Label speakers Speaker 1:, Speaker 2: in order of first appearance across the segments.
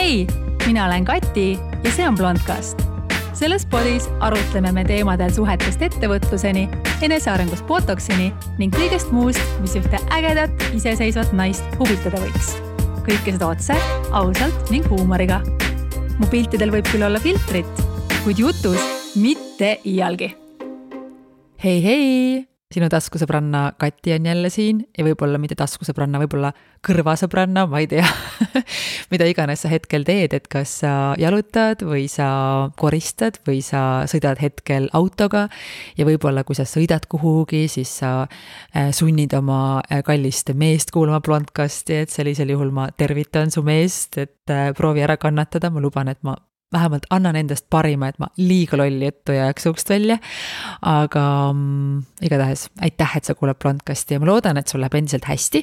Speaker 1: Hei, mina olen Kati ja see on Blondcast. Selles podis arutleme me teemadel suhetest ettevõtluseni, enesearengust botoksini ning kõigest muust, mis ühte ägedat, iseseisvat naist huvitada võiks. Kõike seda otse, ausalt ning huumoriga. Mu piltidel võib küll olla filtrit, kuid jutus mitte iialgi.
Speaker 2: Hei! Sinu taskusõbranna Kati on jälle siin ja võib-olla mitte taskusõbranna, võib-olla kõrvasõbranna, ma ei tea, mida iganes sa hetkel teed, et kas sa jalutad või sa koristad või sa sõidad hetkel autoga ja võib-olla kui sa sõidad kuhugi, siis sa sunnid oma kallist meest kuulama Blondcasti, et sellisel juhul ma tervitan su meest, et proovi ära kannatada, ma luban, et ma vähemalt annan endast parima, et ma liiga lolli juttu ja jääks suust välja, aga igatahes aitäh, et sa kuuled Blondcasti ja ma loodan, et sul läheb endiselt hästi.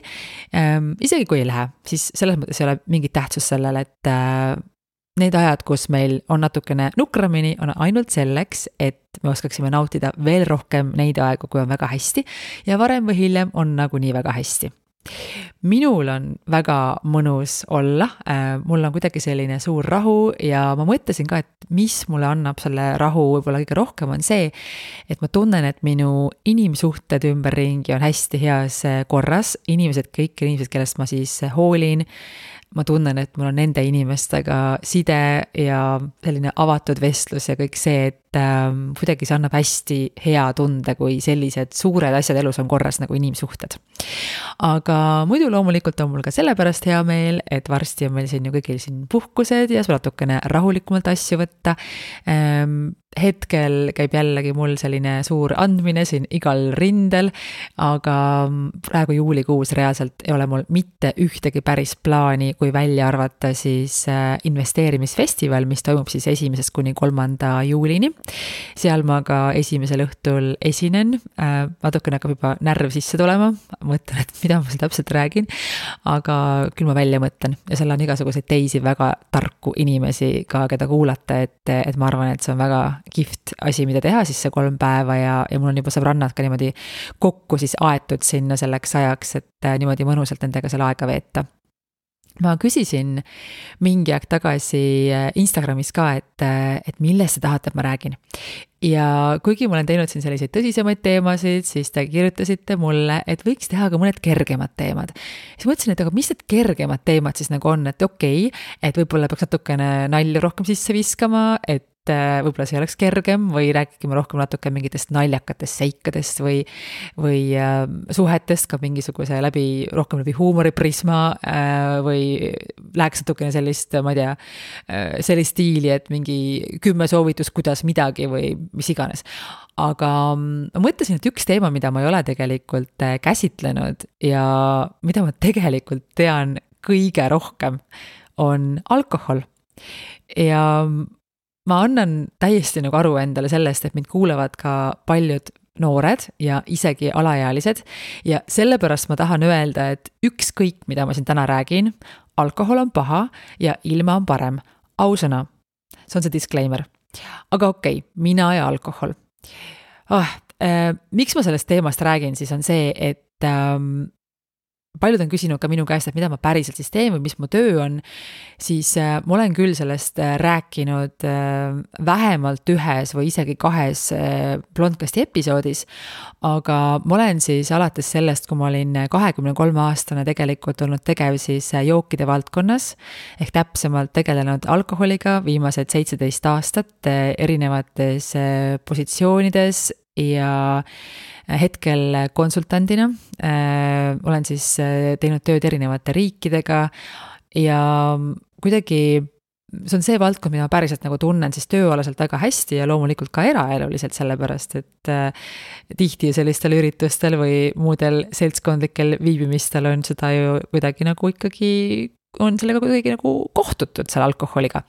Speaker 2: Isegi kui ei lähe, siis selles mõttes ei ole mingit tähtsus sellele, et need ajad, kus meil on natukene nukramini, on ainult selleks, et me oskaksime nautida veel rohkem neid aegu, kui on väga hästi ja varem või hiljem on nagunii väga hästi. Minul on väga mõnus olla, mul on kuidagi selline suur rahu ja ma mõtlesin ka, et mis mulle annab selle rahu võib-olla kõige rohkem on see, et ma tunnen, et minu inimsuhted ümberringi on hästi heas korras, kõik inimesed, kellest ma siis hoolin, ma tunnen, et mul on nende inimestega side ja selline avatud vestlus ja kõik see, et kuidagi see annab hästi hea tunde, kui sellised suured asjad elus on korras nagu inimsuhted. Aga muidu loomulikult on mul ka sellepärast hea meel, et varsti on meil siin ju kõigil siin puhkused ja natukene rahulikumalt asju võtta. Hetkel käib jällegi mul selline suur andmine siin igal rindel, aga praegu juulikuus reaalselt ei ole mul mitte ühtegi päris plaani, kui välja arvata siis investeerimisfestival, mis toimub siis 1. kuni 3. juulini. Seal ma ka esimesel õhtul esinen, natukene hakkab juba närv sisse tulema, mõtlen, et mida ma seal täpselt räägin, aga küll ma välja mõtlen ja seal on igasuguseid teisi väga tarku inimesi ka, keda kuulata, et ma arvan, et see on väga kihvt asi, mida teha siis see 3 päeva ja mul on juba sõbrannad ka niimoodi kokku siis aetud sinna selleks ajaks, et niimoodi mõnusalt nendega seal aega veeta. Ma küsisin mingi aeg tagasi Instagramis ka, et millest sa tahad, et ma räägin. Ja kuigi ma olen teinud siin selliseid tõsisemaid teemasid, siis te kirjutasite mulle, et võiks teha ka mõned kergemad teemad. Siis mõtlesin, et aga mis need kergemad teemad siis nagu on, et okei, et võib-olla peaks natukene nalju rohkem sisse viskama, et võib-olla see oleks kergem või räägime rohkem natuke mingitest naljakatest seikadest või suhetest ka mingisuguse rohkem läbi huumoriprisma või läheks natukene sellist, ma ei tea, sellist stiili, et mingi 10 soovitus, kuidas midagi või mis iganes. Aga ma mõtlesin, et üks teema, mida ma ei ole tegelikult käsitlenud ja mida ma tegelikult tean kõige rohkem, on alkohol. Ja ma annan täiesti nagu aru endale sellest, et mind kuulevad ka paljud noored ja isegi alaealised ja sellepärast ma tahan öelda, et ükskõik, mida ma siin täna räägin, alkohol on paha ja ilma on parem. Ausõna, see on see disclaimer. Aga okei, mina ja alkohol. Miks ma sellest teemast räägin, siis on see, et paljud on küsinud ka minu käest, et mida ma päriselt siis teen või mis mu töö on, siis ma olen küll sellest rääkinud vähemalt 1 või isegi 2 Blondcasti episoodis, aga ma olen siis alates sellest, kui ma olin 23-aastane tegelikult olnud tegev siis jookide valdkonnas, ehk täpsemalt tegelenud alkoholiga viimased 17 aastat erinevates positsioonides ja hetkel konsultandina olen siis teinud tööd erinevate riikidega ja kuidagi see on see valdkond, mida ma päriselt nagu tunnen siis tööalaselt väga hästi ja loomulikult ka eraeluliselt sellepärast, et tihti sellistel üritustel või muudel seltskondlikel viibimistel on seda ju kuidagi nagu ikkagi on sellega kuidagi nagu kohtutud seal alkoholiga.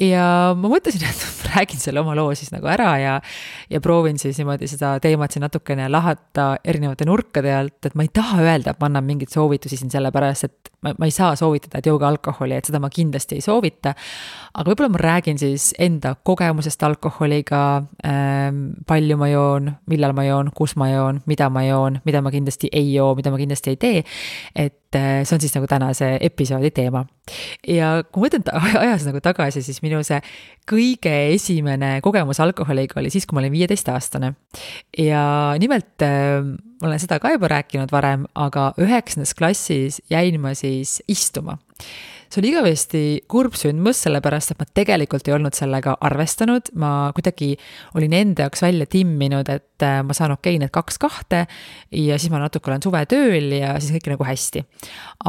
Speaker 2: Ja ma mõtlesin, et räägin selle oma loo siis nagu ära ja proovin siis niimoodi seda teemat siin natukene lahata erinevate nurkade alt, et ma ei taha öelda, et ma annan mingit soovitusi siin sellepärast, et ma ei saa soovitada, et jooge alkoholi, et seda ma kindlasti ei soovita, aga võib-olla ma räägin siis enda kogemusest alkoholiga, palju ma joon, millal ma joon, kus ma joon, mida ma kindlasti ei joo, mida ma kindlasti ei tee, et see on siis nagu tänase episoodi teema. Ja kui ma mõtlen ajas nagu tagasi, siis minu see kõige esimene kogemus alkoholiga oli siis, kui ma olin 15-aastane. Ja nimelt ma olen seda ka juba rääkinud varem, aga 9. klassis jäin ma siis istuma. See oli igavesti kurb sündmus, sellepärast, et ma tegelikult ei olnud sellega arvestanud. Ma kuidagi olin enda jaoks välja timminud, et ma saan need 2 ja siis ma natuke olen suvetööl ja siis kõik nagu hästi.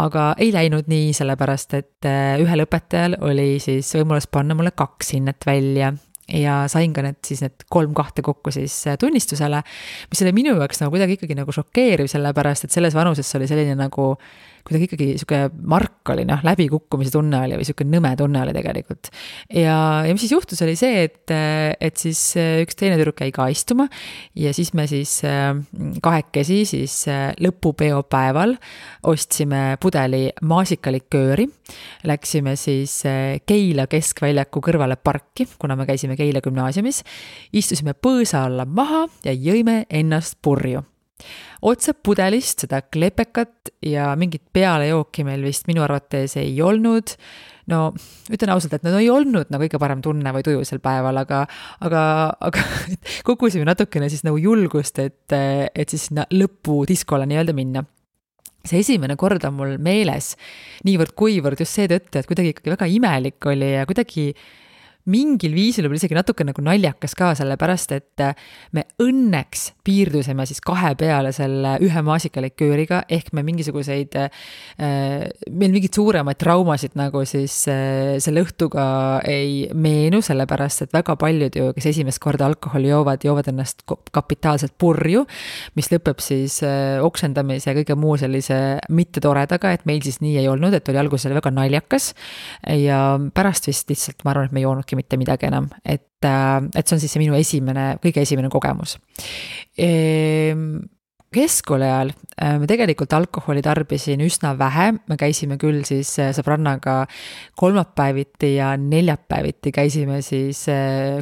Speaker 2: Aga ei läinud nii, sellepärast, et ühel õpetajal oli siis võimalus panna mulle 2 hinnet välja. Ja sain ka need 3 2 kokku siis tunnistusele, mis oli minu jaoks nagu kuidagi ikkagi nagu šokeeriv, sellepärast, et selles vanuses oli selline nagu kuidagi ikkagi siuke mark oli, läbikukkumise tunne oli või siuke nõme tunne oli tegelikult. Ja mis siis juhtus oli see, et siis üks teine tüdruk jäi ka istuma ja siis me siis kahekesi siis lõpupeo päeval ostsime pudeli maasikalikööri, läksime siis Keila keskväljaku kõrvale parki, kuna me käisime Keila gümnaasiumis, istusime põõsa alla maha ja jõime ennast purju. Otse pudelist seda klepekat ja mingit pealejooki meil vist minu arvates ei olnud. No, ütlen ausalt, et no ei olnud nagu kõige parem tunne või tuju sel päeval, aga kogusime natukene siis nagu julgust, et siis sinna lõpudiskole nii öelda minna. See esimene kord on mul meeles niivõrd kuivõrd just seetõttu, et kuidagi ikkagi väga imelik oli ja kuidagi mingil viisil oli isegi natuke nagu naljakas ka, sellepärast, et me õnneks piirdusime siis 2 peale selle 1 maasikalikööriga, ehk me mingisuguseid, meil mingid suuremaid traumasid nagu siis selle õhtuga ei meenu, sellepärast, et väga paljud ju, kes esimest korda alkoholi joovad ennast kapitaalselt purju, mis lõpeb siis oksendamise ja kõige muu sellise mitte toredaga, et meil siis nii ei olnud, et oli alguses väga naljakas ja pärast vist lihtsalt ma arvan, et me ei joonudki mitte midagi enam, et see on siis see minu kõige esimene kogemus. Keskkooli ajal me tegelikult alkoholi tarbisin üsna vähe, me käisime küll siis sõbrannaga kolmapäeviti ja neljapäeviti käisime siis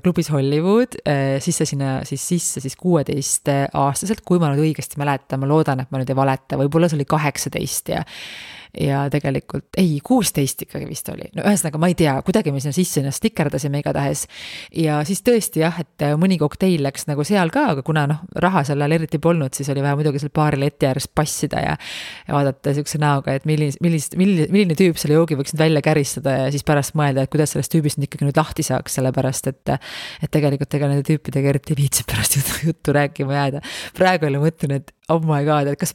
Speaker 2: klubis Hollywood, sisse 16-aastaselt, kui ma nüüd õigesti mäletan, ma loodan, et ma nüüd ei valeta, võib-olla see oli 18 ja tegelikult, 16 ikkagi vist oli. No ühesõnaga ma ei tea, kuidagi me sinna sisse ennast stikerdasime igatahes. Ja siis tõesti jah, et mõni kokteil läks nagu seal ka, aga kuna raha seal eriti polnud, siis oli vaja muidugi seal baari leti ääres passida ja vaadata siukse näoga, et milline tüüp selle joogi võiks nüüd välja käristada ja siis pärast mõelda, et kuidas sellest tüübist nüüd ikkagi nüüd lahti saaks, sellepärast, et tegelikult ega nende tüüpidega eriti viitsib pärast juttu rääkima jääda. Praegu oli mõtlen, et oh my god, et kas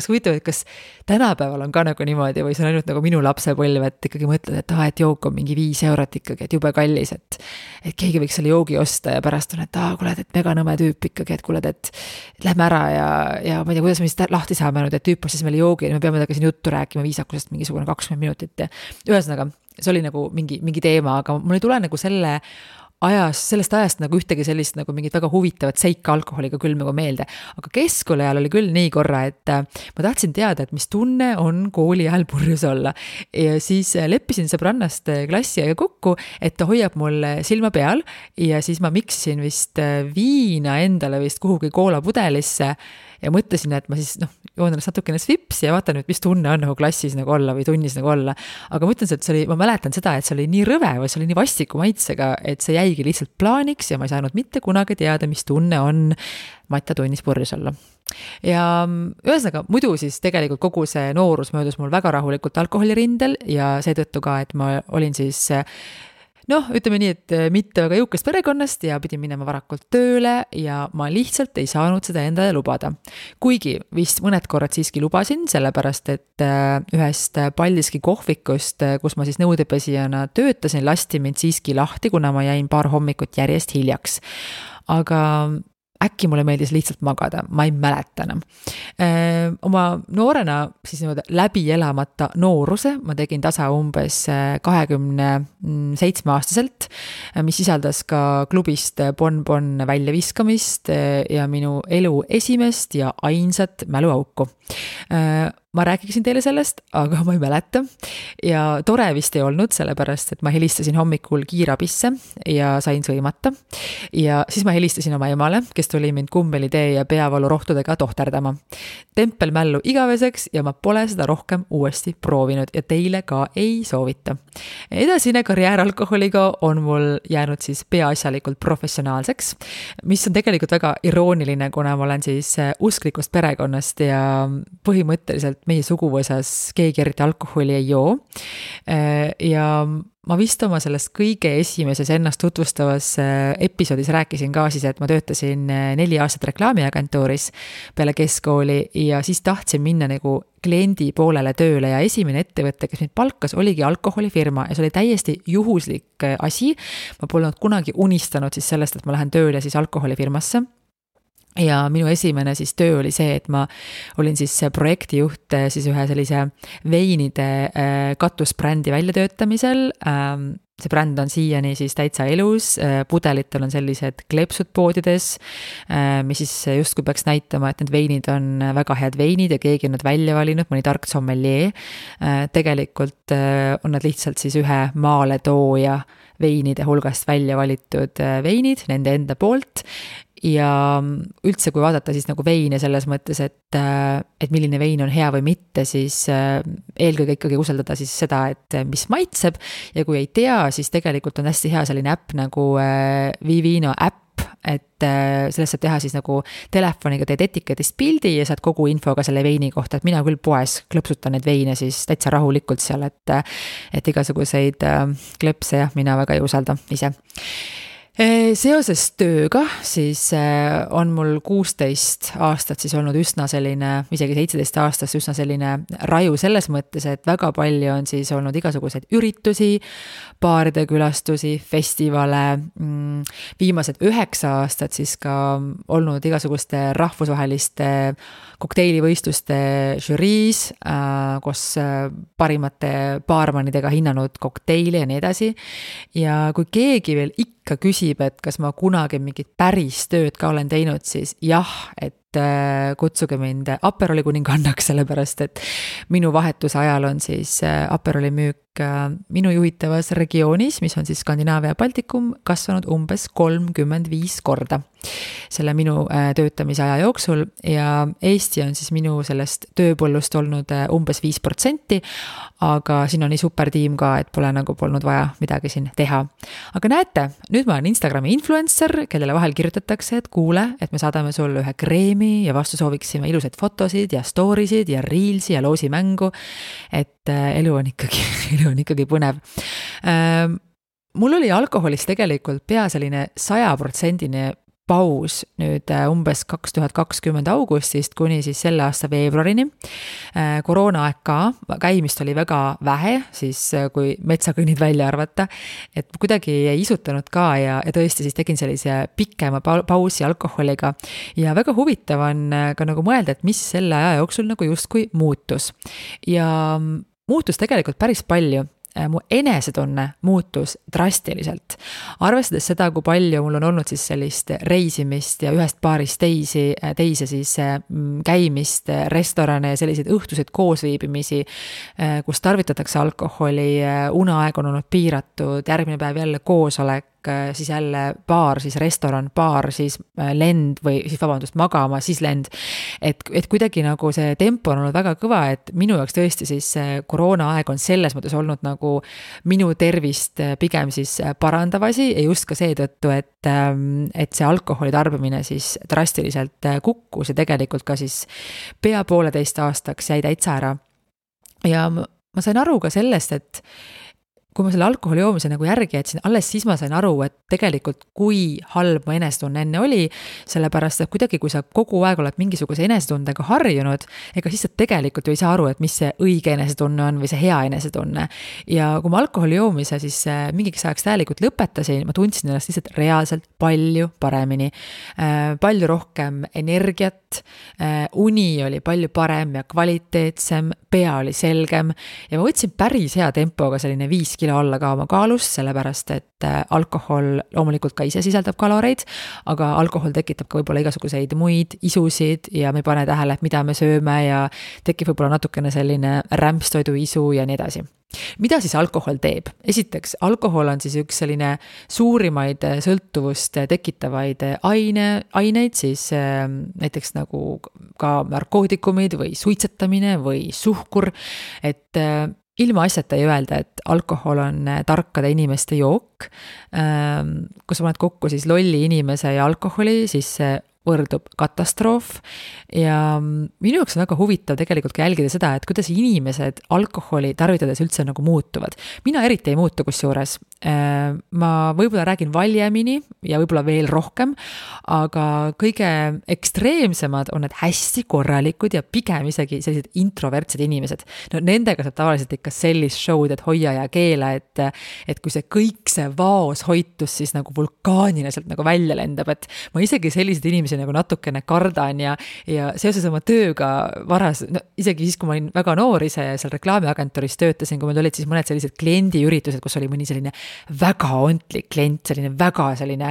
Speaker 2: huvitav, et kas tänapäeval on ka nagu niimoodi või see on ainult nagu minu lapsepõlv, et ikkagi mõtled, et jook on mingi 5 eurot ikkagi, et jube kallis, et keegi võiks selle joogi osta ja pärast on, et kuule, et mega nõme tüüp ikkagi, et kuule, et lähme ära ja ma ei tea, kuidas me siis lahti saame nüüd, et tüüp ostis meile joogi ja me peame temaga siin juttu rääkima viisakusest mingisugune 20 minutit ja ühesõnaga, see oli nagu mingi teema, aga mul ei tule nagu sellest ajast nagu ühtegi sellist nagu mingit väga huvitavat seika alkoholiga küll nagu meelde. Aga keskkooli ajal oli küll nii korra, et ma tahtsin teada, et mis tunne on kooli ajal purjus olla. Ja siis leppisin sõbrannast klassi aega kokku, et ta hoiab mul silma peal ja siis ma miksisin vist viina endale vist kuhugi koolapudelisse ja mõtlesin, et ma siis joon ennast natukene svips ja vaatan, mis tunne on nagu klassis nagu olla või tunnis nagu olla. Aga ma ütlen, et ma mäletan seda, et see oli nii rõve või see oli nii vastiku maitsega, et see jäigi lihtsalt plaaniks ja ma ei saanud mitte kunagi teada, mis tunne on Matta tunnis purjus olla. Ja ühesõnaga, muidu siis tegelikult kogu see noorus möödus mul väga rahulikult alkoholirindel ja seetõttu ka, et ma olin siis ütleme nii, et mitte väga jõukast perekonnast ja pidin minema varakult tööle ja ma lihtsalt ei saanud seda endale lubada. Kuigi vist mõned korrad siiski lubasin, sellepärast et ühest Paldiski kohvikust, kus ma siis nõudepesijana töötasin, lasti mind siiski lahti, kuna ma jäin paar hommikut järjest hiljaks. Aga äkki mulle meeldis lihtsalt magada, ma ei mäleta enam. Oma noorena siis läbi elamata nooruse ma tegin tasa umbes 27-aastaselt, mis sisaldas ka klubist bonbon väljaviskamist ja minu elu esimest ja ainsat mäluauku. ma räägiksin teile sellest, aga ma ei mäleta ja tore vist ei olnud, sellepärast et ma helistasin hommikul kiirabisse ja sain sõimata ja siis ma helistasin oma emale, kes tuli mind kummeli-tee ja peavalurohtudega tohterdama. Tempelmällu igaveseks ja ma pole seda rohkem uuesti proovinud ja teile ka ei soovita. Edasine karjäär alkoholiga on mul jäänud siis peaasjalikult professionaalseks, mis on tegelikult väga irooniline, kuna ma olen siis usklikust perekonnast ja põhimõtteliselt meie suguvõsas keegi eriti alkoholi ei joo. Ja ma vist oma sellest kõige esimeses ennast tutvustavas episoodis rääkisin ka siis, et ma töötasin 4 aastat reklaamiagentuuris peale keskkooli ja siis tahtsin minna nagu kliendi poolele tööle ja esimene ettevõte, kes mind palkas, oligi alkoholifirma ja see oli täiesti juhuslik asi. Ma polnud kunagi unistanud siis sellest, et ma lähen tööle siis alkoholifirmasse. Ja minu esimene siis töö oli see, et ma olin siis projektijuht siis ühe sellise veinide katusbrändi väljatöötamisel. See bränd on siiani siis täitsa elus, pudelitel on sellised kleepsud poodides, mis siis justkui peaks näitama, et need veinid on väga head veinid ja keegi on nad välja valinud, mõni tark sommelier. Tegelikult on nad lihtsalt siis ühe maaletooja veinide hulgast välja valitud veinid, nende enda poolt. Ja üldse, kui vaadata siis nagu veine selles mõttes, et milline vein on hea või mitte, siis eelkõige ikkagi usaldada siis seda, et mis maitseb ja kui ei tea, siis tegelikult on hästi hea selline äpp nagu Vivino äpp, et sellest saab teha siis nagu telefoniga teed etiketist pildi ja saad kogu infoga selle veini kohta, et mina küll poes klõpsutan neid veine siis täitsa rahulikult seal, et igasuguseid klõpse jah, mina väga ei usalda ise. Seoses tööga siis on mul 16 aastat siis olnud üsna selline, isegi 17 aastast üsna selline raju selles mõttes, et väga palju on siis olnud igasuguseid üritusi, baaride külastusi, festivale, viimased 9 aastat siis ka olnud igasuguste rahvusvaheliste kokteilivõistluste žüriis, kus parimate baarmanidega hinnanud kokteili ja nii edasi. Ja kui keegi veel ikka küsib, et kas ma kunagi mingit päris tööd ka olen teinud, siis jah, et kutsuge mind Aperoli kuningannaks, sellepärast et minu vahetuse ajal on siis Aperoli müük minu juhitavas regioonis, mis on siis Skandinaavia ja Baltikum, kasvanud umbes 35 korda selle minu töötamise aja jooksul ja Eesti on siis minu sellest tööpõllust olnud umbes 5%, aga siin on nii super tiim ka, et pole nagu polnud vaja midagi siin teha. Aga näete, nüüd ma olen Instagrami influencer, kellele vahel kirjutatakse, et kuule, et me saadame sulle ühe kreemi ja vastu sooviksime ilusaid fotosid ja storysid ja reelsi ja loosimängu, et elu on ikkagi põnev. Mul oli alkoholist tegelikult pea selline 100% paus nüüd umbes 2020 augustist kuni siis selle aasta veebruarini. Koroonaaeg ka, käimist oli väga vähe, siis kui metsakõnnid välja arvata, et kuidagi ei isutanud ka ja tõesti siis tegin sellise pikema pausi alkoholiga ja väga huvitav on ka nagu mõelda, et mis selle aja jooksul nagu justkui muutus. Ja muutus tegelikult päris palju. Mu enesetunne muutus drastiliselt. Arvestades seda, kui palju mul on olnud siis sellist reisimist ja ühest baarist teise siis käimist, restorane ja selliseid õhtuseid koosviibimisi, kus tarvitatakse alkoholi, uneaeg on olnud piiratud, järgmine päev jälle koosolek, siis jälle baar, siis restoran, baar, siis lend või siis magama, siis lend. Et kuidagi nagu see tempo on olnud väga kõva, et minu jaoks tõesti siis koroonaaeg on selles mõttes olnud nagu minu tervist pigem siis parandavasi ja just ka seetõttu, et see alkoholi tarbimine siis drastiliselt kukkus ja tegelikult ka siis pea 1,5 aastaks jäi täitsa ära. Ja ma sain aru ka sellest, et kui ma selle alkoholi joomise nagu järgi jätsin, alles siis ma sain aru, et tegelikult kui halb mu enesetunne enne oli, sellepärast, et kuidagi kui sa kogu aeg oled mingisuguse enesetundega harjunud, ega siis sa tegelikult ju ei saa aru, et mis see õige enesetunne on või see hea enesetunne. Ja kui ma alkoholi joomise siis mingiks ajaks täielikult lõpetasin, ma tundsin ennast lihtsalt reaalselt palju paremini. Palju rohkem energiat, uni oli palju parem ja kvaliteetsem, pea oli selgem ja ma võtsin päris hea tempoga selline 5 kilo alla ka oma kaalust, sellepärast et alkohol loomulikult ka ise sisaldab kaloreid, aga alkohol tekitab ka võib-olla igasuguseid muid isusid ja me ei pane tähele, et mida me sööme ja tekib võib-olla natukene selline rämpstoidu isu ja nii edasi. Mida siis alkohol teeb? Esiteks, alkohol on siis üks selline suurimaid sõltuvust tekitavaid aineid, siis näiteks nagu ka narkootikumid või suitsetamine või suhkur, et ilma asjata ei öelda, et alkohol on tarkade inimeste jook. Kui sa paned kokku siis lolli inimese ja alkoholi, siis see võrdub katastroof ja minu jaoks on väga huvitav tegelikult ka jälgida seda, et kuidas inimesed alkoholi tarvitades üldse nagu muutuvad. Mina eriti ei muutu kusjuures. Ma võib-olla räägin valjemini ja võib-olla veel rohkem, aga kõige ekstreemsemad on need hästi korralikud ja pigem isegi sellised introvertsed inimesed. No nendega saab tavaliselt ikka sellist show'd, et hoia ja keela, et kui see kõik see vaoshoitus siis nagu vulkaanina sealt nagu välja lendab, et ma isegi sellised inimesi nagu natukene kardan ja seoses oma tööga no, isegi siis, kui ma olin väga noor ise ja seal reklaamiagentuuris töötasin, kui meil olid siis mõned sellised kliendiüritused, kus oli mõni selline väga ontlik klient, selline väga selline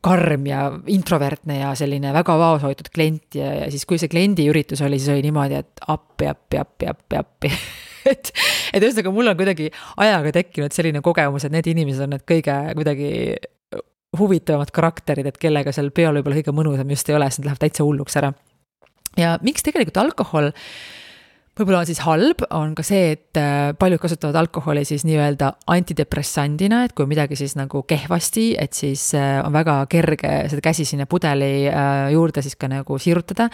Speaker 2: karm ja introvertne ja selline väga vaoshoitud klient ja siis kui see kliendiüritus oli, siis oli niimoodi, et appi. et ühesõnaga mul on kuidagi ajaga tekkinud selline kogemus, et need inimesed on need kõige kuidagi huvitavamad karakterid, et kellega seal peol võib-olla kõige mõnusam just ei ole, siis nad lähevad täitsa hulluks ära. Ja miks tegelikult alkohol võib-olla on siis halb, on ka see, et paljud kasutavad alkoholi siis nii-öelda antidepressandina, et kui midagi siis nagu kehvasti, et siis on väga kerge seda käsi sinna pudeli juurde siis ka nagu sirutada.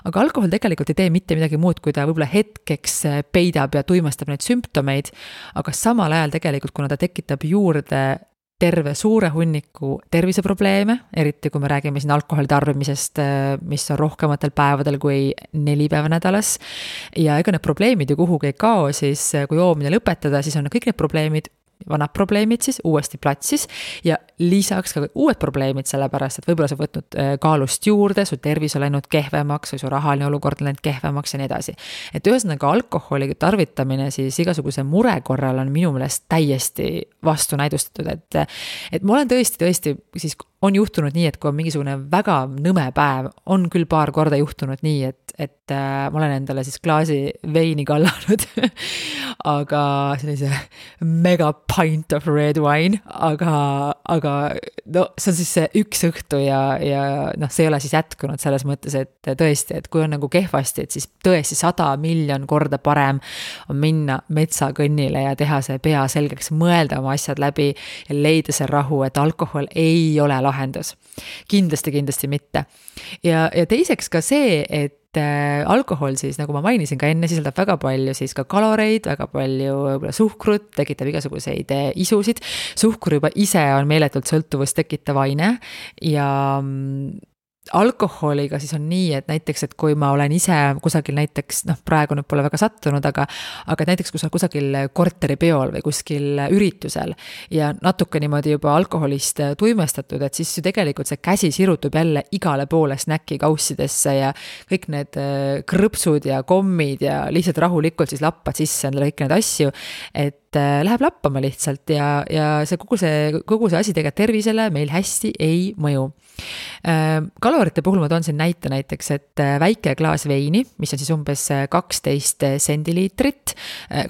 Speaker 2: Aga alkohol tegelikult ei tee mitte midagi muud, kui ta võib-olla hetkeks peidab ja tuimestab neid sümptomeid, aga samal ajal tegelikult, kuna ta tekitab juurde terve suure hunniku terviseprobleeme, eriti kui me räägime siin alkoholi tarbimisest, mis on rohkematel päevadel kui 4 päeva nädalas. Ja ega need probleemid ju kuhugi ei kao, siis kui joomine lõpetada, siis on kõik need probleemid, vanad probleemid siis uuesti platsis ja lisaks ka uued probleemid, sellepärast, et võib-olla sa võtnud kaalust juurde, su tervis on läinud kehvemaks või su rahaline olukord on läinud kehvemaks ja nii edasi. Et ühesõnaga alkoholi tarvitamine siis igasuguse mure korral on minu meelest täiesti vastunäidustatud, et ma olen tõesti siis on juhtunud nii, et kui on mingisugune väga nõme päev, on küll paar korda juhtunud nii, et ma olen endale siis klaasi veini kallanud, aga sellise mega pint of red wine, aga no see on siis see üks õhtu ja noh, see ei ole siis jätkunud selles mõttes, et tõesti, et kui on nagu kehvasti, et siis tõesti 100 miljon korda parem on minna metsakõnnile ja teha see pea selgeks, mõelda oma asjad läbi ja leida see rahu, et alkohol ei ole lahendus. Kindlasti mitte. Ja teiseks ka see, et alkohol siis, nagu ma mainisin ka enne, sisaldab väga palju siis ka kaloreid, väga palju võib-olla suhkrut, tekitab igasuguseid isusid. Suhkur juba ise on meeletult sõltuvust tekitav aine ja alkoholiga siis on nii, et näiteks, et kui ma olen ise kusagil näiteks, noh praegu nüüd pole väga sattunud, aga näiteks kui sa kusagil korteripeol või kuskil üritusel ja natuke niimoodi juba alkoholist tuimestatud, et siis ju tegelikult see käsi sirutub jälle igale poole snäki kaussidesse ja kõik need krõpsud ja kommid ja lihtsalt rahulikult siis lappad sisse endale kõik need asju, et läheb lappama lihtsalt ja see kogu see asi tegelikult tervisele meil hästi ei mõju. Kalorite puhul ma toon siin näite näiteks, et väike klaas veini, mis on siis umbes 12 sendiliitrit.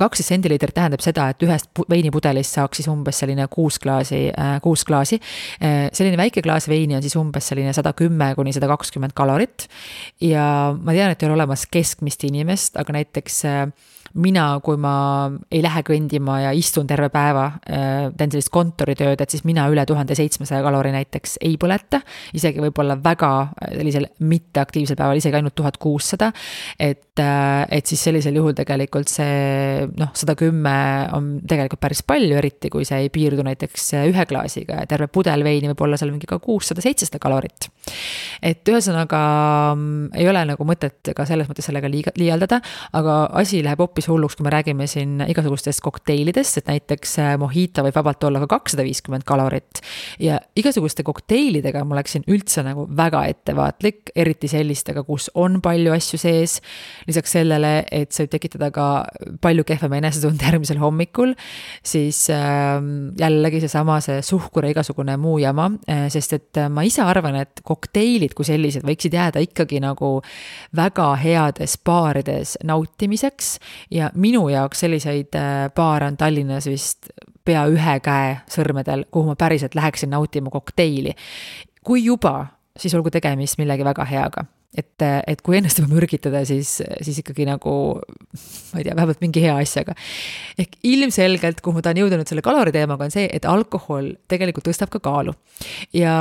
Speaker 2: 12 sendiliitrit tähendab seda, et ühest veinipudelist saaks siis umbes selline 6 klaasi. Selline väike klaas veini on siis umbes selline 110–120 kalorit ja ma tean, et ei ole olemas keskmist inimest, aga näiteks mina, kui ma ei lähe kõndima ja istun terve päeva, teen sellist kontoritööd, et siis mina üle 1700 kalori näiteks ei põleta, isegi võib-olla väga sellisel mitteaktiivsel päeval, isegi ainult 1600, et siis sellisel juhul tegelikult see 110 on tegelikult päris palju, eriti kui see ei piirdu näiteks ühe klaasiga ja terve pudel veini võib olla seal mingi ka 600-700 kalorit. Et ühesõnaga ei ole nagu mõtet ka selles mõttes sellega liialdada, aga asi läheb hoopis hulluks, kui me räägime siin igasugustest kokteilidest, kokteilidest, et näiteks mojito võib vabalt olla ka 250 kalorit ja igasuguste kokteilidega ma läksin üldse nagu väga ettevaatlik, eriti sellistega, kus on palju asju sees. Lisaks sellele, et see võib tekitada ka palju kehvema enesetunde järgmisel hommikul, siis jällegi see suhkur ja igasugune muu jama, sest et ma ise arvan, et kokteilid kui sellised võiksid jääda ikkagi nagu väga heades baarides nautimiseks ja minu jaoks selliseid baare on Tallinnas vist pea ühe käe sõrmedel, kuhu ma päriselt läheksin nautima kokteili. Kui juba, siis olgu tegemist millegi väga heaga. Et kui ennast juba mürgitada, siis ikkagi nagu, ma ei tea, vähemalt mingi hea asjaga. Ehk ilmselgelt, kuhu ma tahan jõudnud selle kaloriteemaga, on see, et alkohol tegelikult tõstab ka kaalu. Ja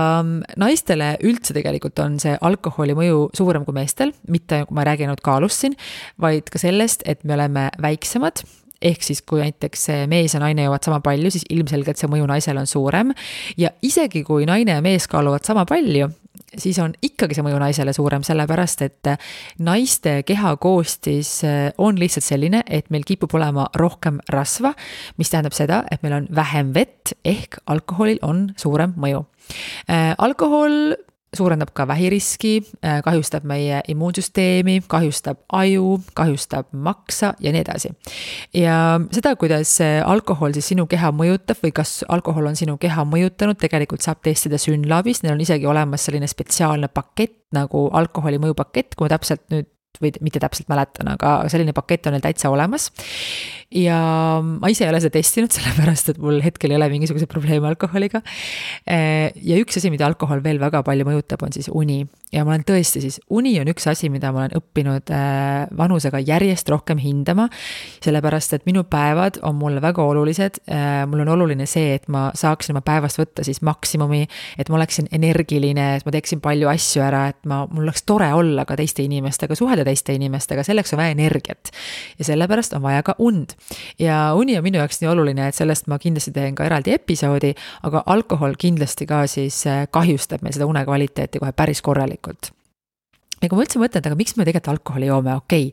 Speaker 2: naistele üldse tegelikult on see alkoholi mõju suurem kui meestel, mitte kui ma räägin ainult kaalust siin, vaid ka sellest, et me oleme väiksemad. Ehk siis, kui näiteks mees ja naine jõuavad sama palju, siis ilmselgelt see mõju naisel on suurem. Ja isegi kui naine ja mees kaaluvad sama palju, siis on ikkagi see mõju naisele suurem, sellepärast, et naiste kehakoostis on lihtsalt selline, et meil kipub olema rohkem rasva, mis tähendab seda, et meil on vähem vett, ehk alkoholil on suurem mõju. Alkohol suurendab ka vähiriski, kahjustab meie immuunsüsteemi, kahjustab aju, kahjustab maksa ja nii edasi. Ja seda, kuidas alkohol siis sinu keha mõjutab või kas alkohol on sinu keha mõjutanud, tegelikult saab testida Synlabis, neil on isegi olemas selline spetsiaalne pakett nagu alkoholi mõjupakett, kui ma täpselt nüüd või mitte täpselt mäletan, aga selline pakett on neil täitsa olemas. Ja ma ise ei ole seda testinud, sellepärast, et mul hetkel ei ole mingisuguse probleeme alkoholiga. Ja üks asi, mida alkohol veel väga palju mõjutab, on siis uni. Ja ma olen tõesti siis, uni on üks asi, mida ma olen õppinud vanusega järjest rohkem hindama, sellepärast, et minu päevad on mulle väga olulised. Mul on oluline see, et ma saaksin oma päevast võtta siis maksimumi, et ma oleksin energiline, et ma teeksin palju asju ära, et mul oleks tore olla ka teiste inimestega, suhelda teiste inimestega, selleks on vaja energiat. Ja sellepärast on vaja ka und. Ja uni on minu jaoks nii oluline, et sellest ma kindlasti teen ka eraldi episoodi, aga alkohol kindlasti ka siis kahjustab meil seda une kvaliteeti kohe päris korralikult. Ja kui ma üldse mõtlen, aga miks me tegelikult alkoholi joome? Okei,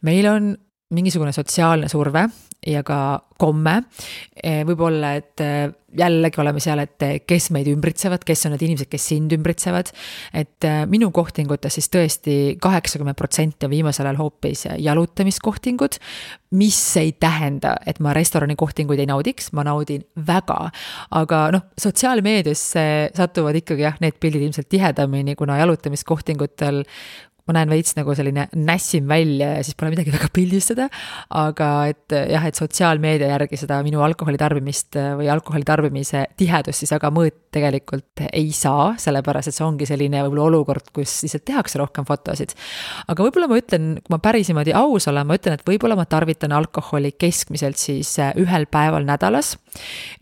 Speaker 2: meil on mingisugune sotsiaalne surve ja ka komme. Võib-olla, et jällegi oleme seal, et kes meid ümbritsevad, kes on need inimesed, kes sind ümbritsevad. Et minu kohtingutes siis tõesti 80% on viimasel ajal hoopis jalutamiskohtingud, mis ei tähenda, et ma restorani kohtinguid ei naudiks, ma naudin väga. Aga sotsiaalmeedias satuvad ikkagi need pildid ilmselt tihedamini, kuna jalutamiskohtingutel ma näen veits nagu selline nässim välja ja siis pole midagi väga pildistada, aga et sotsiaalmeedia järgi seda minu alkoholitarbimist või alkoholitarbimise tihedust siis aga mõõt tegelikult ei saa, sellepärast, et see ongi selline võib-olla olukord, kus lihtsalt tehakse rohkem fotosid. Aga võib-olla ma ütlen, kui ma pärisimadi aus olen, ma ütlen, et võib-olla ma tarvitan alkoholi keskmiselt siis ühel päeval nädalas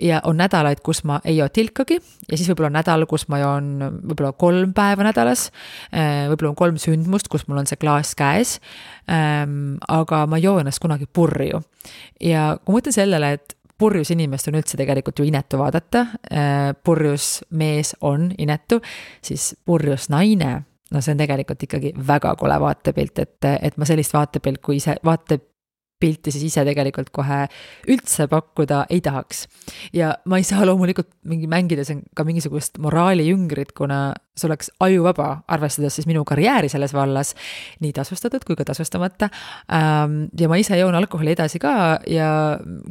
Speaker 2: ja on nädalaid, kus ma ei joo tilkagi ja siis võib-olla on nädal, kus ma joon võib-olla 3 päeva nädalas, võib-olla on 3 sündmust, kus mul on see klaas käes, aga ma joo ennast kunagi purju. Ja kui mõtlen sellele, et purjus inimest on üldse tegelikult ju inetu vaadata, purjus mees on inetu, siis purjus naine, see on tegelikult ikkagi väga kole vaatepilt, et ma sellist vaatepilt, kui ise vaatepilti siis ise tegelikult kohe üldse pakkuda ei tahaks. Ja ma ei saa loomulikult mängida ka mingisugust moraali jüngrit, kuna see oleks ajuvaba, arvestades siis minu karjääri selles vallas, nii tasustatud kui ka tasustamata. Ja ma ise joon alkoholi edasi ka ja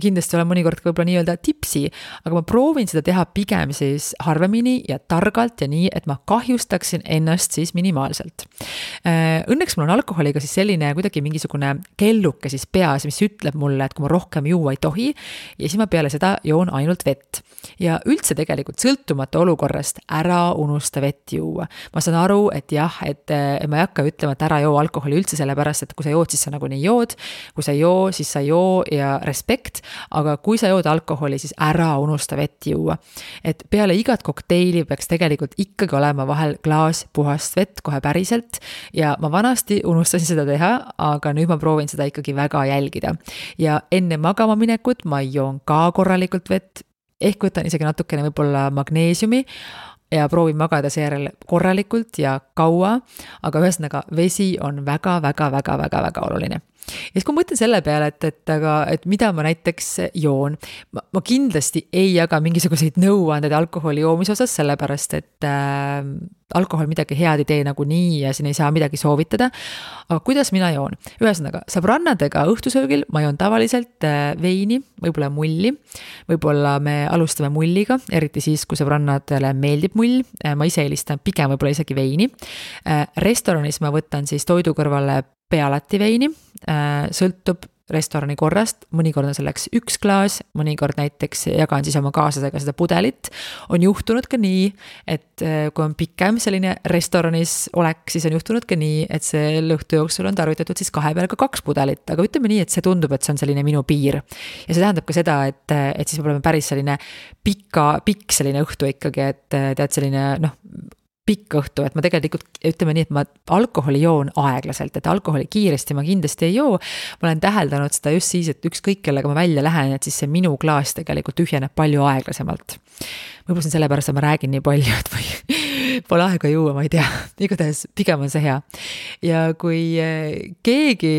Speaker 2: kindlasti olen mõnikord võib-olla nii-öelda tipsi, aga ma proovin seda teha pigem siis harvemini ja targalt ja nii, et ma kahjustaksin ennast siis minimaalselt. Õnneks mul on alkoholiga siis selline kuidagi mingisugune kelluke siis peas, mis ütleb mulle, et kui ma rohkem juua ei tohi ja siis ma peale seda joon ainult vett. Ja üldse tegelikult sõltumata olukorrast ära unusta vett juua. Ma saan aru, et jah, et ma ei hakka ütlema, et ära joo alkoholi üldse sellepärast, et kui sa jood, siis sa nagunii jood, kui sa joo, siis sa joo ja respekt, aga kui sa jood alkoholi, siis ära unusta vett juua. Et peale igat kokteili peaks tegelikult ikkagi olema vahel klaas puhast vett kohe päriselt ja ma vanasti unustasin seda teha, aga nüüd ma proovin seda ikkagi väga jälgida. Ja enne magama minekut ma joon ka korralikult vett, ehk võtan isegi natukene võib-olla magneesiumi, ja proovin magada seejärel korralikult ja kaua, aga ühesõnaga vesi on väga oluline. Ja siis kui ma mõtlen selle peale, et mida ma näiteks joon, ma kindlasti ei jaga mingisuguseid nõuandeid alkoholi joomise osas, sellepärast et alkohol midagi head ei tee nagunii ja siin ei saa midagi soovitada. Aga kuidas mina joon? Ühesõnaga, sõbrannadega õhtusöögil ma joon tavaliselt veini, võib-olla mulli, võib-olla me alustame mulliga, eriti siis, kui sõbrannadele meeldib mull, ma ise eelistan pigem võib-olla isegi veini. Restoranis ma võtan siis toidu kõrvale pealati veini, sõltub restorani korrast, mõnikord on selleks 1 klaas, mõnikord näiteks jagan siis oma kaaslasega seda pudelit. On juhtunud ka nii, et kui on pikem selline restoranis olek, siis on juhtunud ka nii, et see õhtu jooksul on tarvitatud siis 2 peale ka 2 pudelit, aga ütleme nii, et see tundub, et see on selline minu piir. Ja see tähendab ka seda, et siis me oleme päris selline pikk selline õhtu ikkagi, et tead selline pikk õhtu, et ma tegelikult ütleme nii, et ma alkoholi joon aeglaselt, et alkoholi kiiresti ma kindlasti ei joo. Ma olen täheldanud seda just siis, et ükskõik kellega ma välja lähen, et siis see minu klaas tegelikult tühjeneb palju aeglasemalt. Võib-olla see on sellepärast, et ma räägin nii palju, et ma pole aega juua, ma ei tea. Igatahes pigem on see hea. Ja kui keegi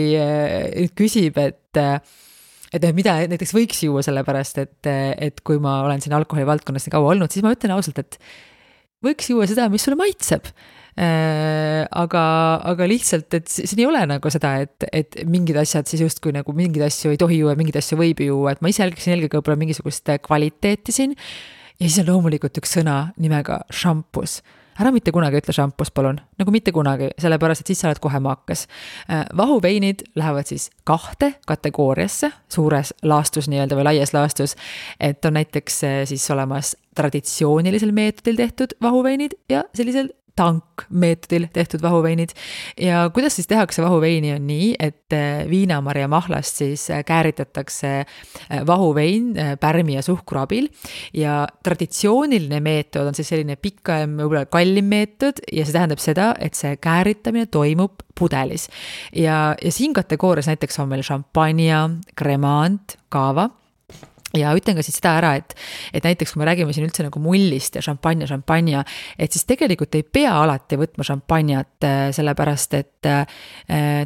Speaker 2: küsib, et mida näiteks võiks juua sellepärast, et kui ma olen siin alkoholi valdkonnas nii kaua olnud, siis ma ütlen ausalt, et võiks juua seda, mis sulle maitseb. Aga lihtsalt, et siin ei ole nagu seda, et mingid asjad siis justkui nagu mingid asju ei tohi juua, mingid asju võib juua, et ma ise jälgiksin eelkõige võib-olla mingisugust kvaliteeti siin. Ja siis on loomulikult üks sõna nimega šampus. Ära mitte kunagi ütle šampus, palun. Nagu mitte kunagi, sellepärast, et siis sa oled kohe maakas. Vahuveinid lähevad siis 2 kategooriasse, suures laastus nii-öelda või laies laastus, et on näiteks siis olemas traditsioonilisel meetodil tehtud vahuveinid ja sellisel tankmeetodil tehtud vahuveinid. Ja kuidas siis tehakse vahuveini on nii, et viinamarja mahlast siis kääritatakse vahuvein pärmi ja suhkru abil ja traditsiooniline meetod on siis selline pikem, võib-olla kallim meetod ja see tähendab seda, et see kääritamine toimub pudelis. Ja siin kategoorias näiteks on meil šampanja, kremant, kaava. Ja ütlen ka siis seda ära, et näiteks kui me räägime siin üldse nagu mullist ja šampanja, et siis tegelikult ei pea alati võtma šampanjat, sellepärast, et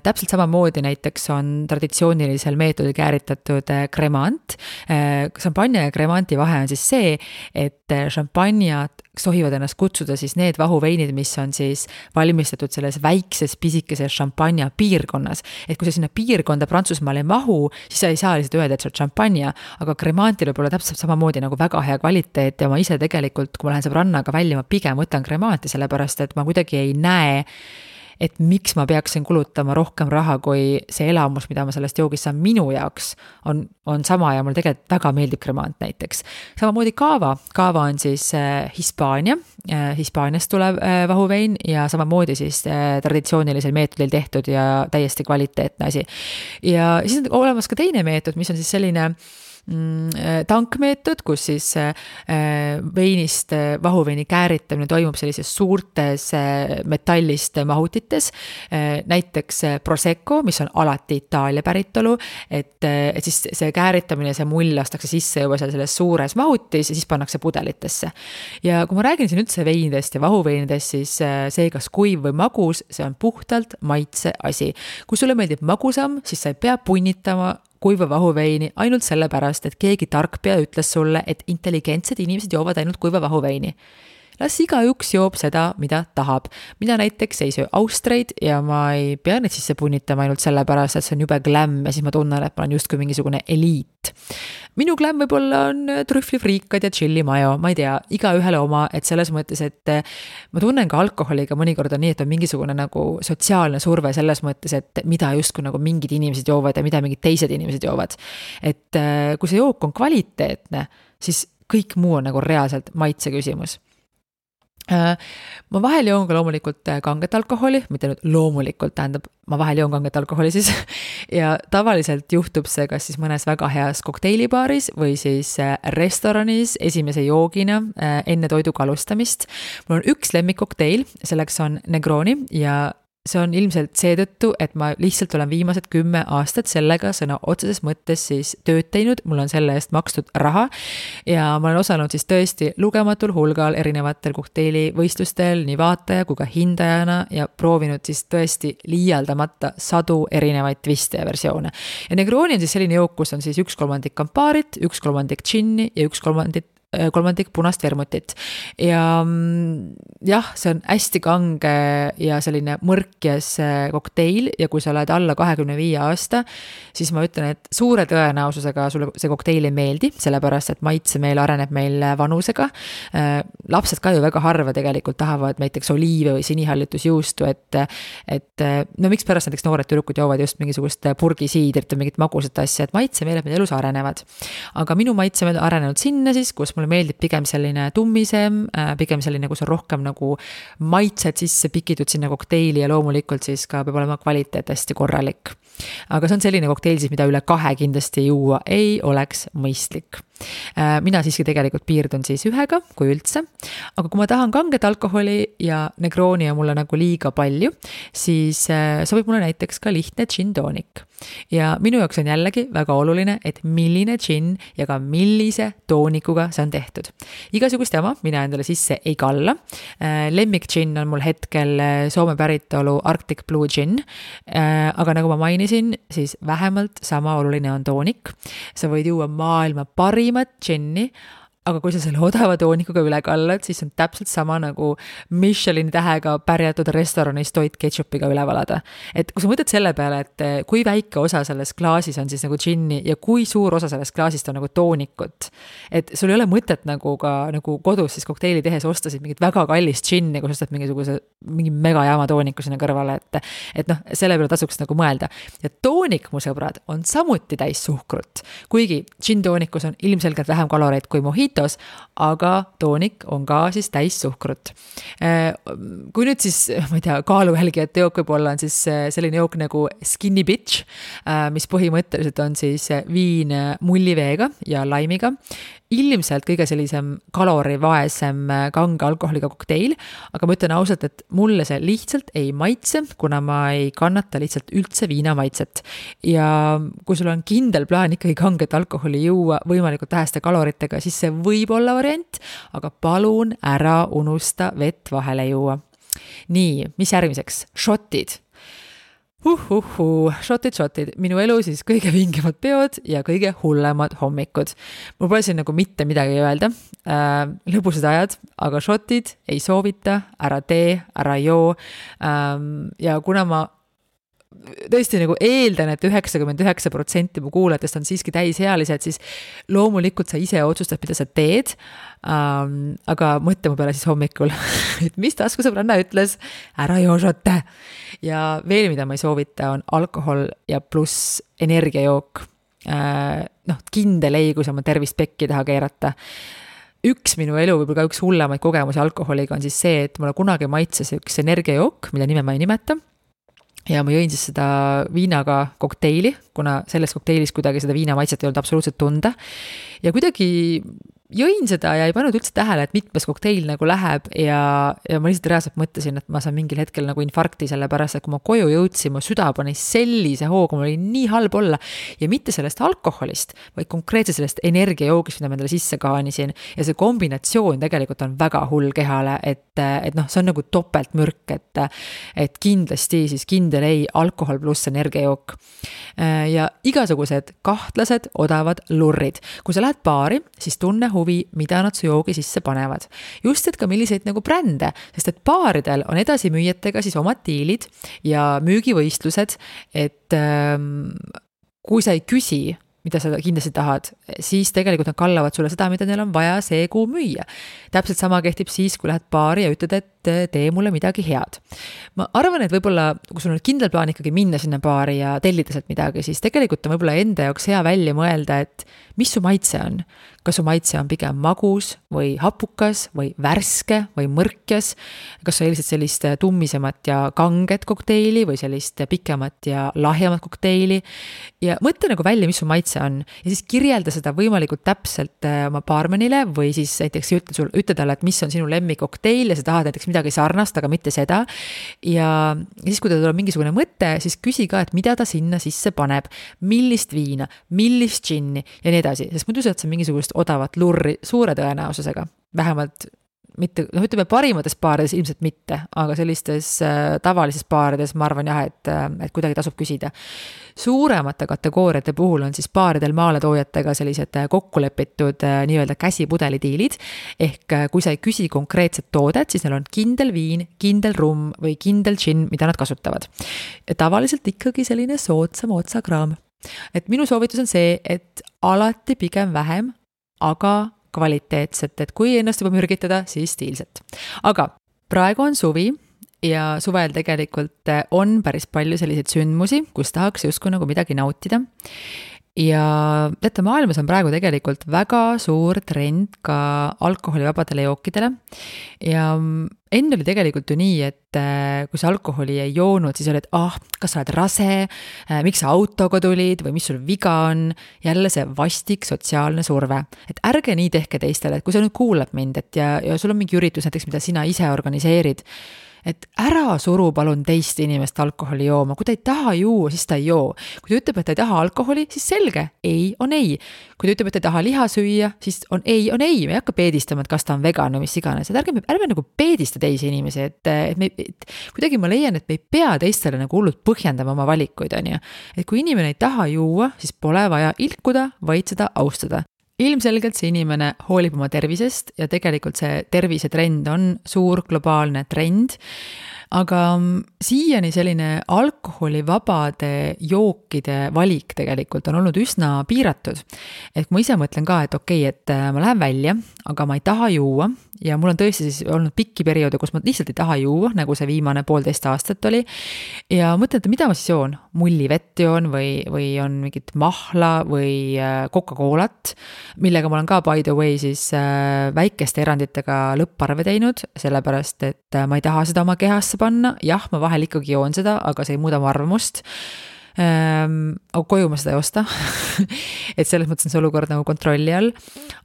Speaker 2: täpselt samamoodi näiteks on traditsioonilisel meetodil kääritatud kremant. Šampanja ja kremanti vahe on siis see, et šampanjad sohivad ennast kutsuda siis need vahuveinid, mis on siis valmistatud selles väikses pisikeses šampanja piirkonnas. Et kui sa sinna piirkonda Prantsusmaal ei mahu, siis sa ei saa lihtsalt öelda, et see on šampanja, aga kremantil võib olla täpselt samamoodi nagu väga hea kvaliteet ja ma ise tegelikult, kui ma lähen sõbrannaga välja, ma pigem võtan kremanti, sellepärast et ma kuidagi ei näe, et miks ma peaksin kulutama rohkem raha, kui see elamus, mida ma sellest joogist saan minu jaoks, on sama ja mul tegelikult väga meeldib kremant näiteks. Samamoodi kaava on siis Hispaaniast tulev vahuvein ja samamoodi siis traditsioonilisel meetodil tehtud ja täiesti kvaliteetne asi. Ja siis on olemas ka teine meetod, mis on siis selline tankmeetod, kus siis veinist vahuveini kääritamine toimub sellises suurtes metallist mahutites, näiteks Prosecco, mis on alati Itaalia päritolu, et siis see kääritamine, see mull lastakse sisse juba selles suures mahutis ja siis pannakse pudelitesse. Ja kui ma räägin siin üldse veinidest ja vahuveinidest, siis see kas kuiv või magus, see on puhtalt maitse asi. Kui sulle meeldib magusam, siis sa ei pea punnitama kuiva vahuveini ainult sellepärast, et keegi tarkpea ütles sulle, et intelligentsed inimesed joovad ainult kuiva vahuveini. Las igaüks joob seda, mida tahab. Mina näiteks ei söö austreid ja ma ei pea neid sisse punnitama ainult sellepärast, et see on jube glam ja siis ma tunnen, et ma olen justkui mingisugune eliit. Minu glam võib-olla on trühvlifriikad ja chili mayo, ma ei tea, iga ühele oma, et selles mõttes, et ma tunnen ka alkoholiga mõnikord on nii, et on mingisugune nagu sotsiaalne surve selles mõttes, et mida justkui nagu mingid inimesed joovad ja mida mingid teised inimesed joovad. Et kui see jook on kvaliteetne, siis kõik muu on nagu reaalselt maitse küsimus. Ma vahel joon ka loomulikult kanget alkoholi, mitte nüüd loomulikult tähendab, ma vahel joon kanget alkoholi siis ja tavaliselt juhtub see kas siis mõnes väga heas kokteilibaaris või siis restoranis esimese joogina enne toiduga alustamist. Mul on üks lemmikkokteil, selleks on Negroni ja see on ilmselt seetõttu, et ma lihtsalt olen viimased 10 aastat sellega sõna otseses mõttes siis tööd teinud, mul on selle eest makstud raha ja ma olen osalenud siis tõesti lugematul hulgal erinevatel kokteilivõistlustel nii vaataja kui ka hindajana ja proovinud siis tõesti liialdamata sadu erinevaid twiste ja versioone. Ja Negroni on siis selline jook, kus on siis 1/3 kampaarit, 1/3 džinni ja 1/3 punast vermutit. Ja jah, see on hästi kange ja selline mõrkjas kokteil ja kui sa oled alla 25 aasta, siis ma ütlen, et suure tõenäosusega sulle see kokteil ei meeldi, sellepärast et maitsemeel areneb meil vanusega. Lapsed ka ju väga harva tegelikult tahavad näiteks oliive või sinihallitusjuustu, et no miks pärast näiteks noored tüdrukud joovad just mingisugust purgisiidrit või mingit magusat asja, et maitsemeeled meil elus arenevad. Aga minu maitsemeel on arenenud sinna siis, kus mulle meeldib pigem selline tummisem, pigem selline, kus on rohkem nagu maitsed sisse pikitud sinna kokteili ja loomulikult siis ka peab olema kvaliteet hästi korralik. Aga see on selline kokteil siis, mida üle 2 kindlasti juua ei oleks mõistlik. Mina siiski tegelikult piirdun siis 1, kui üldse, aga kui ma tahan kanget alkoholi ja Negroni on mulle nagu liiga palju, siis sobib mulle näiteks ka lihtne gin tonic. Ja minu jaoks on jällegi väga oluline, et milline gin ja ka millise toonikuga see on tehtud. Igasugust jama mina endale sisse ei kalla. Lemmik gin on mul hetkel Soome päritolu Arctic Blue gin, aga nagu ma mainisin, siis vähemalt sama oluline on toonik. Sa võid juua maailma parimat ginni, aga kui sa selle odava toonikuga üle kallad, siis on täpselt sama nagu Michelini tähega pärjatud restoranis toit ketšupiga üle valada. Et kui sa mõtled selle peale, et kui väike osa selles klaasis on siis nagu džinni ja kui suur osa sellest klaasist on nagu toonikut, et sul ei ole mõtet nagu ka nagu kodus siis kokteili tehes ostasid mingit väga kallist džinni, kui sa ostad mingi megajaama tooniku sinna kõrvale, et noh, selle peale tasuks nagu mõelda. Ja toonik, mu sõbrad, on samuti täis suhkrut, kuigi džin toonikus on ilmselgelt vähem kaloreid kui mohitos, aga toonik on ka siis täis suhkrut. Kui nüüd siis, ma ei tea, kaaluhelgijate jook võib-olla on siis selline jook nagu Skinny Bitch, mis põhimõtteliselt on siis viin mulliveega ja laimiga. Ilmselt kõige sellisem kalorivaesem kange alkoholiga kokteil, aga ma ütlen ausalt, et mulle see lihtsalt ei maitse, kuna ma ei kannata lihtsalt üldse viina maitset. Ja kui sul on kindel plaan ikkagi kanget alkoholi juua võimalikult väheste kaloritega, siis see võib olla variant, aga palun ära unusta vett vahele juua. Nii, mis järgmiseks? Shotid. Shotid. Minu elu siis kõige vingemad peod ja kõige hullemad hommikud. Mul pole siin nagu mitte midagi öelda. Lõbusad ajad, aga shotid ei soovita, ära tee, ära joo. Ja kuna ma tõesti nagu eeldan, et 99% mu kuulajatest on siiski täisealised, siis loomulikult sa ise otsustad, mida sa teed, aga mõtle mu peale siis hommikul, et mis taskusõbranna ütles, ära joo šotte. Ja veel, mida ma ei soovita, on alkohol ja pluss energiajook. Kindel ei, kui sa oma tervist pekki taha keerata. Üks minu elu, võib-olla ka üks hullemaid kogemusi alkoholiga on siis see, et mulle kunagi maitses üks energiajook, mille nime ma ei nimeta. Ja ma jõin siis seda viinaga kokteili, kuna selles kokteilis kuidagi seda viina maitset ei olnud absoluutselt tunda. Ja kuidagi jõin seda ja ei pannud üldse tähele, et mitmes kokteil nagu läheb ja ma lihtsalt reaalselt mõtlesin, et ma saan mingil hetkel nagu infarkti selle pärast, et kui ma koju jõudsin, mu süda pani sellise hooga, mul oli nii halb olla ja mitte sellest alkoholist, vaid konkreetselt sellest energiajoogist, mida ma endale sisse kaanisin ja see kombinatsioon tegelikult on väga hull kehale, et see on nagu topeltmürk, et kindlasti siis kindel ei alkohol pluss energiajook ja igasugused kahtlased odavad lurrid. Kui sa lähed baari, siis tunne huvi, mida nad su joogi sisse panevad. Just, et ka milliseid nagu brände, sest et baaridel on edasimüüjatega siis omad diilid ja müügivõistlused, et kui sa ei küsi, mida sa kindlasti tahad, siis tegelikult nad kallavad sulle seda, mida neil on vaja see kuu müüa. Täpselt sama kehtib siis, kui lähed baari ja ütled, et tee mulle midagi head. Ma arvan, et võib-olla, kui sul on kindel plaan ikkagi minna sinna baari ja tellida sealt midagi, siis tegelikult on võib-olla enda jaoks hea välja mõelda, et mis su maitse on. Kas su maitse on pigem magus või hapukas või värske või mõrkjas? Kas sa eelised sellist tummisemat ja kanget kokteili või sellist pikemat ja lahjemat kokteili? Ja mõtle nagu välja, mis su maitse see on. Ja siis kirjelda seda võimalikult täpselt oma baarmenile või siis näiteks ütle talle, et mis on sinu lemmikokteil ja sa tahad näiteks midagi sarnast, aga mitte seda. Ja siis, kui ta tuleb mingisugune mõte, siis küsi ka, et mida ta sinna sisse paneb, millist viina, millist džinni ja nii edasi, sest muidu saad sa mingisugust odavat lurri suure tõenäosusega, vähemalt mitte, ütleme parimates baarides ilmselt mitte, aga sellistes tavalises baarides ma arvan jah, et kuidagi tasub küsida. Suuremate kategooriate puhul on siis baaridel maaletoojatega sellised kokkulepitud nii-öelda käsipudelidiilid, ehk kui sa ei küsi konkreetset toodet, siis neil on kindel viin, kindel rumm või kindel džinn, mida nad kasutavad. Ja tavaliselt ikkagi selline soodsam otsakraam. Et minu soovitus on see, et alati pigem vähem, aga kvaliteetset, et kui ennast juba mürgitada, siis stiilset. Aga praegu on suvi ja suvel tegelikult on päris palju selliseid sündmusi, kus tahaks justkui nagu midagi nautida. Ja teate, maailmas on praegu tegelikult väga suur trend ka alkoholivabadele jookidele ja enne oli tegelikult ju nii, et kui sa alkoholi ei joonud, siis oli, et kas sa oled rase, miks sa autoga tulid või mis sul viga on, jälle see vastik sotsiaalne surve. Et ärge nii tehke teistele, et kui sa nüüd kuulad mind, et ja sul on mingi üritus näiteks, mida sina ise organiseerid, et ära suru palun teist inimest alkoholi jooma, kui ta ei taha juua, siis ta ei joo. Kui ta ütleb, et ta ei taha alkoholi, siis selge, ei on ei. Kui ta ütleb, et ta ei taha liha süüa, siis on ei, me ei hakka peedistama, et kas ta on vegan või mis iganes. Et ärme nagu peedista teisi inimesi, et kuidagi ma leian, et me ei pea teistele nagu hullult põhjendama oma valikuid, on ju. Et kui inimene ei taha juua, siis pole vaja ilkuda, vaid seda austada. Ilmselgelt see inimene hoolib oma tervisest ja tegelikult see tervisetrend on suur globaalne trend, aga siiani selline alkoholivabade jookide valik tegelikult on olnud üsna piiratud. Et ma ise mõtlen ka, et okei, et ma lähen välja, aga ma ei taha juua ja mul on tõesti siis olnud pikki perioode, kus ma lihtsalt ei taha juua, nagu see viimane 1,5 aastat oli. Ja mõtlen, et mida ma siis joon? Mullivett joon või on mingit mahla või Coca-Colat, millega ma olen ka by the way siis väikeste eranditega lõpparve teinud, sellepärast, et ma ei taha seda oma kehasse panna. Jah, ma vahel ikkagi joon seda, aga see ei muuda mu arvamust. Aga koju ma seda ei osta. Et selles mõttes on see olukord nagu kontrolli all.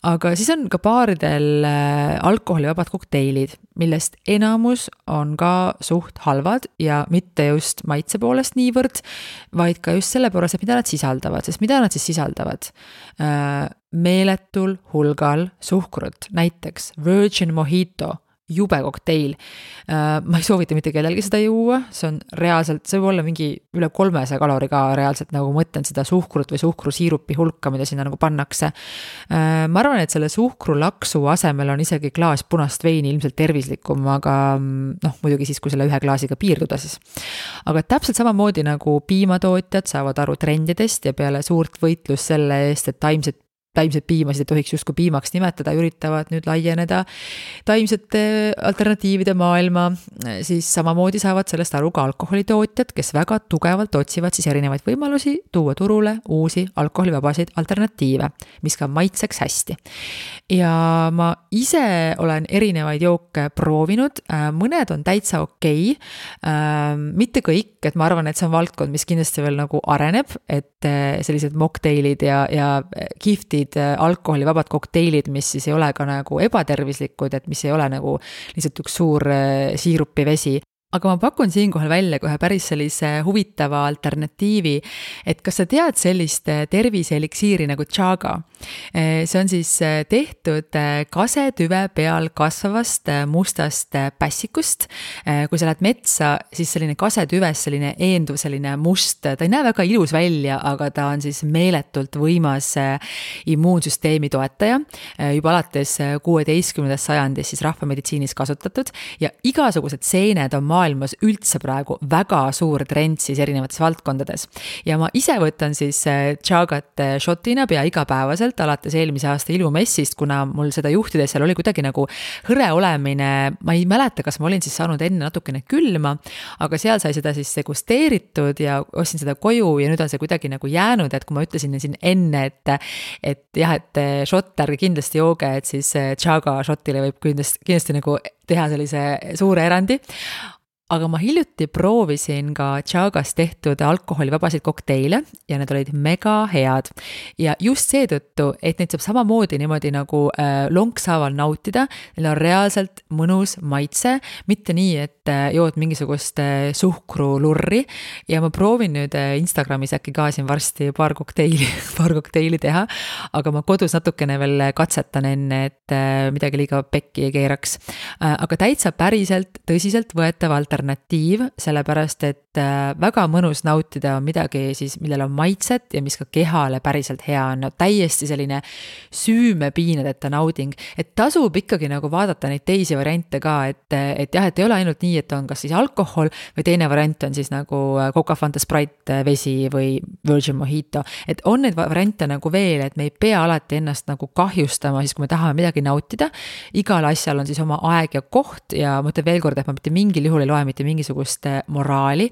Speaker 2: Aga siis on ka baaridel alkoholivabad kokteilid, millest enamus on ka suht halvad ja mitte just maitse poolest niivõrd, vaid ka just selle poolest, et mida nad sisaldavad. Sest mida nad siis sisaldavad? Meeletul hulgal suhkrut, näiteks Virgin Mojito, jube kokteil. Ma ei soovita mitte kellelgi seda juua, see on reaalselt, see võib olla mingi üle 300 kalori ka reaalselt, nagu mõtlen seda suhkrut või suhkrusiirupi hulka, mida sinna nagu pannakse. Ma arvan, et selle suhkrulaksu asemel on isegi klaas punast veini ilmselt tervislikum, aga muidugi siis, kui selle ühe klaasiga piirduda siis. Aga täpselt samamoodi nagu piimatootjad saavad aru trendidest ja peale suurt võitlust selle eest, et taimset piimasid ei tohiks justkui piimaks nimetada, üritavad nüüd laieneda taimsete alternatiivide maailma, siis samamoodi saavad sellest aru ka alkoholitootjad, kes väga tugevalt otsivad siis erinevaid võimalusi tuua turule uusi alkoholivabasid alternatiive, mis ka maitseks hästi. Ja ma ise olen erinevaid jooke proovinud, mõned on täitsa okei, mitte kõik, et ma arvan, et see on valdkond, mis kindlasti veel nagu areneb, et sellised mocktailid ja kiftid alkoholivabad kokteilid, mis siis ei ole ka nagu ebatervislikud, et mis ei ole nagu lihtsalt üks suur siirupivesi. Aga ma pakun siinkohal välja kohe päris sellise huvitava alternatiivi, et kas sa tead sellist terviseeliksiiri nagu Chaga? See on siis tehtud kasetüve peal kasvavast mustast pässikust. Kui sa lähed metsa, siis selline kasetüves selline eenduv, selline must, ta ei näe väga ilus välja, aga ta on siis meeletult võimas immuunsüsteemi toetaja. Juba alates 16. sajandis siis rahvameditsiinis kasutatud ja igasugused seened on maailmas üldse praegu väga suur trend siis erinevates valdkondades. Ja ma ise võtan siis Chagat shotina pea igapäevaselt alates eelmise aasta ilumessist, kuna mul seda juhtides seal oli kuidagi nagu hõre olemine, ma ei mäleta, kas ma olin siis saanud enne natukene külma, aga seal sai seda siis degusteeritud ja ostsin seda koju ja nüüd on see kuidagi nagu jäänud, et kui ma ütlesin siin enne, et jah, et shot ärge kindlasti jooge, et siis Chaga shotile võib kindlasti nagu teha sellise suure erandi. aga ma hiljuti proovisin ka Chagas tehtud alkoholivabasid kokteile ja need olid mega head. Ja just seetõttu, et neid saab samamoodi niimoodi nagu lonkshaaval nautida, neil on reaalselt mõnus maitse, mitte nii, et jood mingisugust suhkrulurri ja ma proovin nüüd Instagramis äkki ka siin varsti paar kokteili teha, aga ma kodus natukene veel katsetan enne, et midagi liiga pekki ei keeraks. Aga täitsa päriselt tõsiselt võetav alternatiiv, sellepärast et väga mõnus nautida midagi siis, millel on maitset ja mis ka kehale päriselt hea on. No, täiesti selline süümepiinadeta nauding, et tasub ikkagi nagu vaadata neid teisi variante ka, et jah, et ei ole ainult nii, et on kas siis alkohol või teine variant on siis nagu Coca, Fanta, Sprite, vesi või Virgin Mojito. Et on neid variante nagu veel, et me ei pea alati ennast nagu kahjustama, siis kui me tahame midagi nautida. Igal asjal on siis oma aeg ja koht ja ma ütlen veel kord, et ma mitte mingil juhul ei loe mitte mingisugust moraali,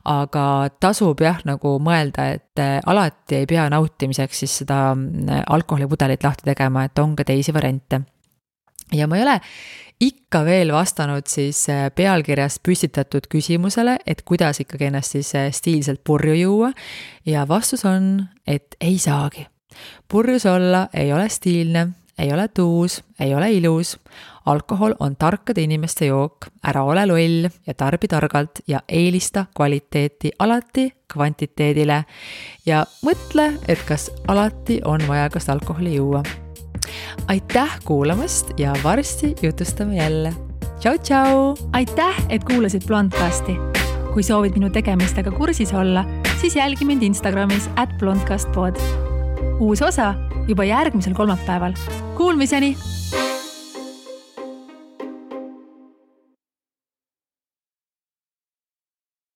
Speaker 2: aga tasub jah nagu mõelda, et alati ei pea nautimiseks siis seda alkoholipudelit lahti tegema, et on ka teisi variante. Ja ma ei ole ikka veel vastanud siis pealkirjas püstitatud küsimusele, et kuidas ikkagi ennast siis stiilselt purju juua ja vastus on, et ei saagi. Purjus olla ei ole stiilne, ei ole tuus, ei ole ilus. Alkohol on tarkade inimeste jook, ära ole loll ja tarbi targalt ja eelista kvaliteeti alati kvantiteedile ja mõtle, et kas alati on vaja kas alkoholi juua. Aitäh kuulamast ja varsti jutustame jälle. Tšau, tšau!
Speaker 1: Aitäh, et kuulasid Blondcasti. Kui soovid minu tegemistega kursis olla, siis jälgi mind Instagramis @blondcastpod. Uus osa juba järgmisel kolmapäeval. Kuulmiseni!